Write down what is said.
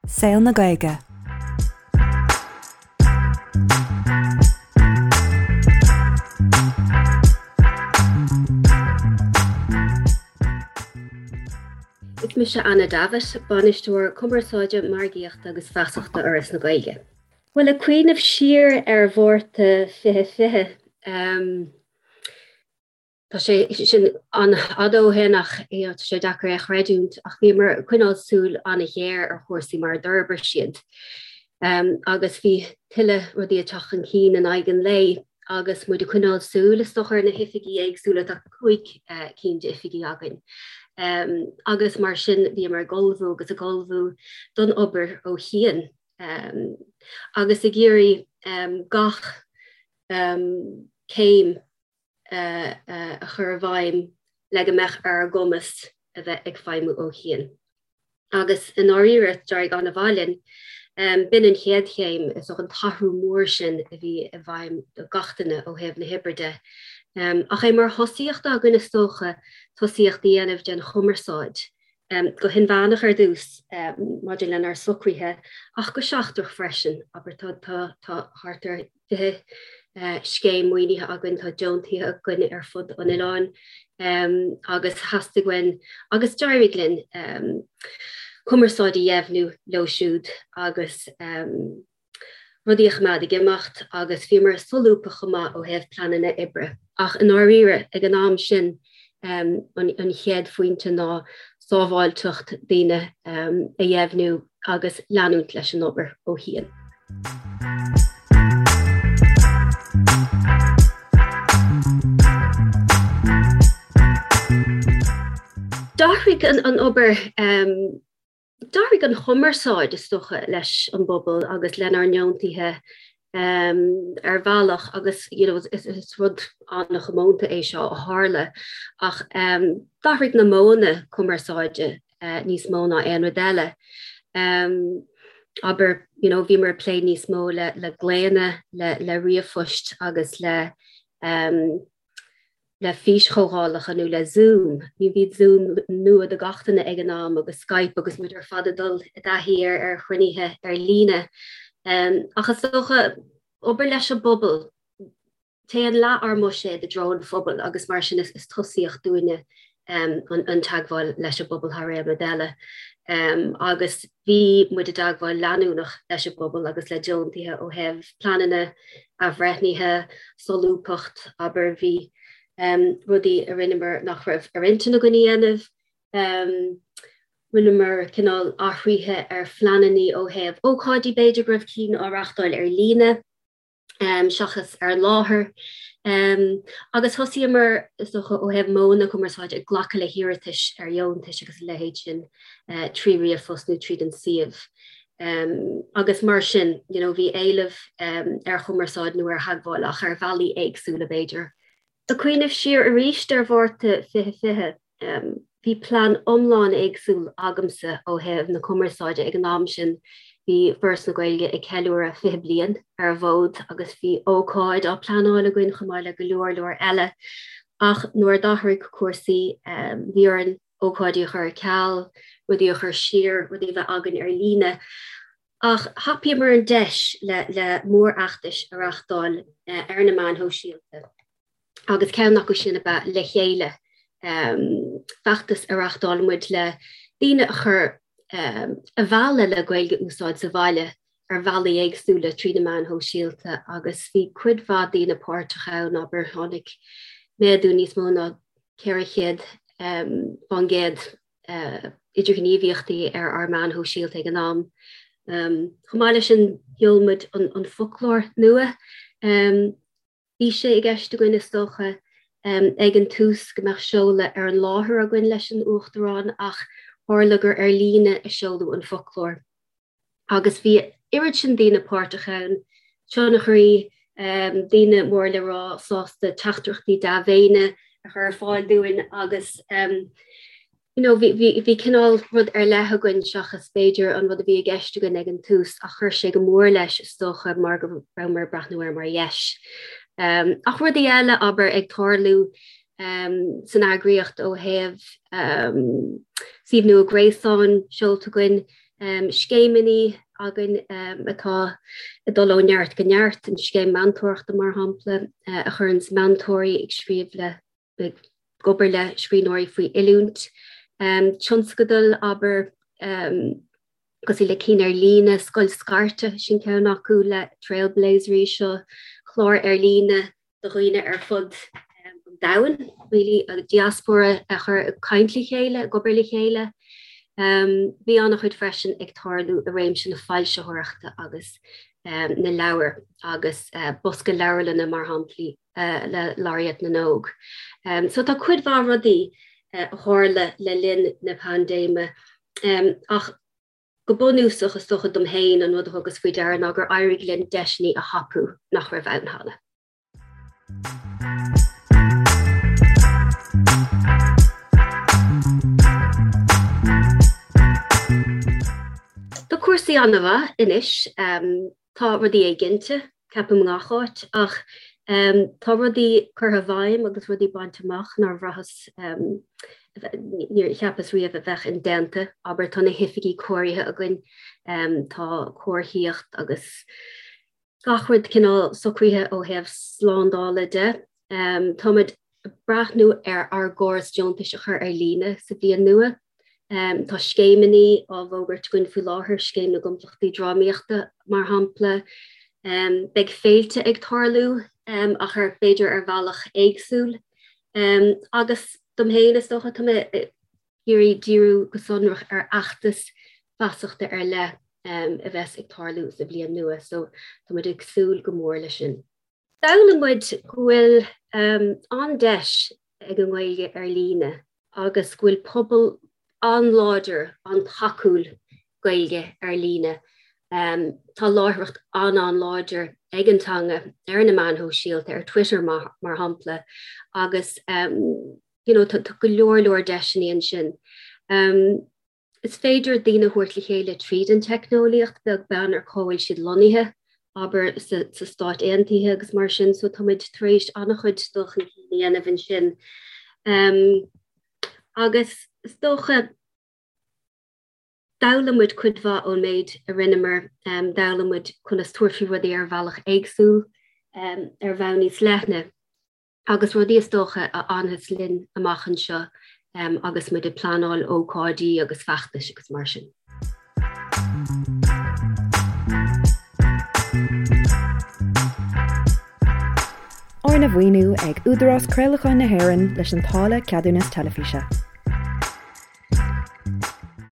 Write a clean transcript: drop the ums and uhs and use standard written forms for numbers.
Saol na Gaeilge. Is mise Anna Davitt, Bainisteoir Cumarsáide, Margaíochta agus Feasachta Fhoras na Gaeilge. Bhuel, ag cuimhneamh siar ar Mhárta 2020, Tá sé sin an-fhada ó shin ach tá sé deacair é a chreidiúint ach bhíomar ag coinneáil súil an-ghéar ar chúrsaí mar a d'fhorbair siad agus bhí tuilleadh rudaí ag teacht chun cinn in aghaidh an lae agus muid ag coinneáil súil is dócha ar na hoifigí éagsúla, tá 5 cinn d'oifigí againn agus mar sin bhíomar ag ullmhú agus ag ullmhú don obair ó chian agus ag iarraidh gach céim a chur i bhfeidhm le go mbeadh ar ár gcumas a bheith ag feidhmiú ó chian. Agus i ndáiríre, d'éirigh an-mhaith linn. B'in an chéad chéim, is dócha, an t-athrú mór sin a bhí i bhfeidhm do gach duine ó thaobh na hoibre de. Ach é mar thosaíocht againn, is dócha, tosaíocht a dhéanamh den chumarsáid, go hinmheánach ar dtús maidir lenár socruithe ach go seachtrach freisin. Abair, tá thart ar 20 scéim maoinithe againn, tá deontaithe againn ar fud an oileáin agus theastaigh uainn, agus d'éirigh linn, cumarsáid a dheimhniú leo siúd agus rudaí a choimeád ag imeacht agus bhíomar solúbtha chomh maith ó thaobh pleananna oibre. Ach i ndáiríre, ag an am sin, an chéad phointe ná sábháilteacht daoine a dheimhniú agus leanúint leis an obair ó chian. D'athraigh an obair, d'athraigh an chumarsáid, is dócha, leis an bpobal agus lenár ndeontaithe ar bhealach agus you know is rud an-chomónta é seo a tharla ach d'athraigh na modhanna cumarsáide níos mó ná aon rud eile. Abair, you know, bhíomar ag plé níos mó le le glaonna, le le ríomhphoist agus le le físchomhdhálacha nó le Zoom. Bhí bhí Zoom nua do gach duine ag an am agus Skype agus muid ar fad ag dul i dtaithí ar ar chruinnithe ar líne. Ach is dócha obair leis an bpobal, Téann leath ár mbuiséad i dtreo an phobail agus mar sin is tosaíocht dúinne an teagmháil leis an bpobal thar aon rud eile. Agus bhí muid i dteagmháil leanúnach leis an bpobal agus le deontaithe ó thaobh pleananna, athbhreithnithe, solúbthacht, abair, bhí rudaí a rinneamar nach raibh ar intinn againn a dhéanamh. Rinneamar cineál athruithe ar phleananna ó thaobh ócáidí, b'fhéidir go raibh cinn á reáchtáil ar líne. seachas ar an láthair. Agus thosaíomar, is dócha, ó thaobh modhanna cumarsáide, ag glacadh le hiarratais ar dheontais agus a leithéid sin trí ríomhphost nó tríd an suíomh. Agus mar sin, you know, bhí éileamh ar chumarsáid nó ar theagmháil ach ar bhealaí éagsúla, b'fhéidir. Ag cuimhneamh siar arís ar Mhárta 2020, Bhí plean iomlán éagsúil agamsa ó thaobh na cumarsáide ag an am sin. Bhí Foras na Gaeilge ag ceiliúradh 20 bliain ar an bhfód agus bhí ócáid á pleanáil againn chomh maith le go leor leor eile. Ach nuair a d'athraigh cúrsaí, bhí orainn ócáidí a chur ar ceal, rudaí a chur siar, rudaí a bheith againn ar líne. Ach thapaíomar an deis le le mórfheachtais a reáchtáil ar na meáin shóisialta. agus ceann acu sin ab ea Le Chéile, feachtas a reáchtáil muid le daoine a chur a mhealladh le Gaeilge a úsáid sa bhaile ar bhealaí éagsúla trí na meáin shóisialta agus bhí cuid mhaith daoine páirteach ann, abair, tháinig méadú níos mó ná 400 fán gcéad idirghníomhaíochtaí ar ár meáin shóisialta ag an am. Chomh maith leis sin, sheol muid an foclóir nua. Bhí sé i gceist againn, is dócha, ag an tús go mbeadh seoladh ar an láthair againn leis an Uachtarán ach tharla gur ar líne a seoladh an foclóir agus bhí oiread sin daoine páirteach ann, tionchairí, daoine mór le rá sásta teachtaireachtaí dea-mhéine a chur ar fáil dúinn agus you know, bhí, bhí, bhí cineál rud ar leith againn seachas b'fhéidir an rud a bhí i gceist againn ag an tús ach chuir sé go mór leis is dócha mar go rabhamar ag breathnú air mar dheis. Um, ach rudaí eile abair ag tarlú um, san eagraíocht ó thaobh um, suíomh nua gréasáin seolta againn. Scéimeanna againn atá ag dul ó neart go neart, an scéim meantóireachta mar shampla, a chuireanns meantóirí ag scríobh le, ag obair le scríbhneoirí faoi oiliúint. Tionscadail, abair, cosúil le cinn ar líne, Scoil Scairte, sin ceann acu le Trailblazers, seo clár ar líne do dhaoine ar fud an domhain, really, an diaspóra a chur ag caint le chéile, ag obair le chéile. Bhí an-chuid freisin ag tarlú i réimse na foilsitheoireachta agus na leabhar agus bosca leabharlainne mar shamplaí le Laureate na nÓg. So tá cuid mhaith rudaí a tharla le linn na paindéime ach go bunúsach is dócha dom féin an rud a thugas faoi deara ná gur éirigh linn deiseanna a thapú nach raibh ann cheana. Tá cúrsaí an-mhaith anois. Tá rudaí éiginnte, ceapaim i ngach áit, ach tá rudaí curtha i bhfeidhm agus rudaí bainte amach nár bhraitheas, níor cheapas riamh a bheadh indéanta. Abair, tá na hoifigí cóirithe againn, tá comharthaíocht agus gach rud cineál socraithe ó thaobh slándála de. Táimid ag breathnú ar ár gcóras deontais a chur ar líne sa bhliain nua. Tá scéimeanna á bhfógairt againn faoi láthair, Scéim na gComplachtaí Drámaíochta mar shampla. Beidh féilte ag tarlú ach ar b'fhéidir ar bhealach éagsúil. Agus dom féin is dócha tá mé ag iarraidh díriú go sonrach ar fheachtas feasachta ar leith a bheas ag tarlú sa bhliain nua so tá muid ag súil go mór leis sin. D'fhoghlaim muid go bhfuil an-deis ag an nGaeilge ar líne agus go bhfuil pobal an-láidir, an-tacúil Gaeilge ar líne. Tá láithreacht an-an-láidir ag an teanga ar na meáin shóisialta, ar Twitter mar shampla, agus you know tá go leor leor deiseanna ansin. Is féidir daoine a thabhairt le chéile tríd an teicneolaíocht, beag beann ar cá bhfuil siad lonnaithe, abair sa Stáit Aontaithe agus mar sin, so tá muid tar éis an-chuid dul chun cinn a dhéanamh ansin. Agus is dócha, d'fhoghlaim muid cuid mhaith ón méid a rinneamar, d'fhoghlaim muid conas tabhairt faoi rudaí ar bhealach éagsúil, ar bhonn níos leithne. agus rudaí is dócha a fhanfas linn amach anseo agus muid ag pleanáil ócáidí agus feachtais agus mar sin. Arna mhaoiniú ag Údarás Craolacháin na hÉireann leis an táille Ceadúnas Teilifíse.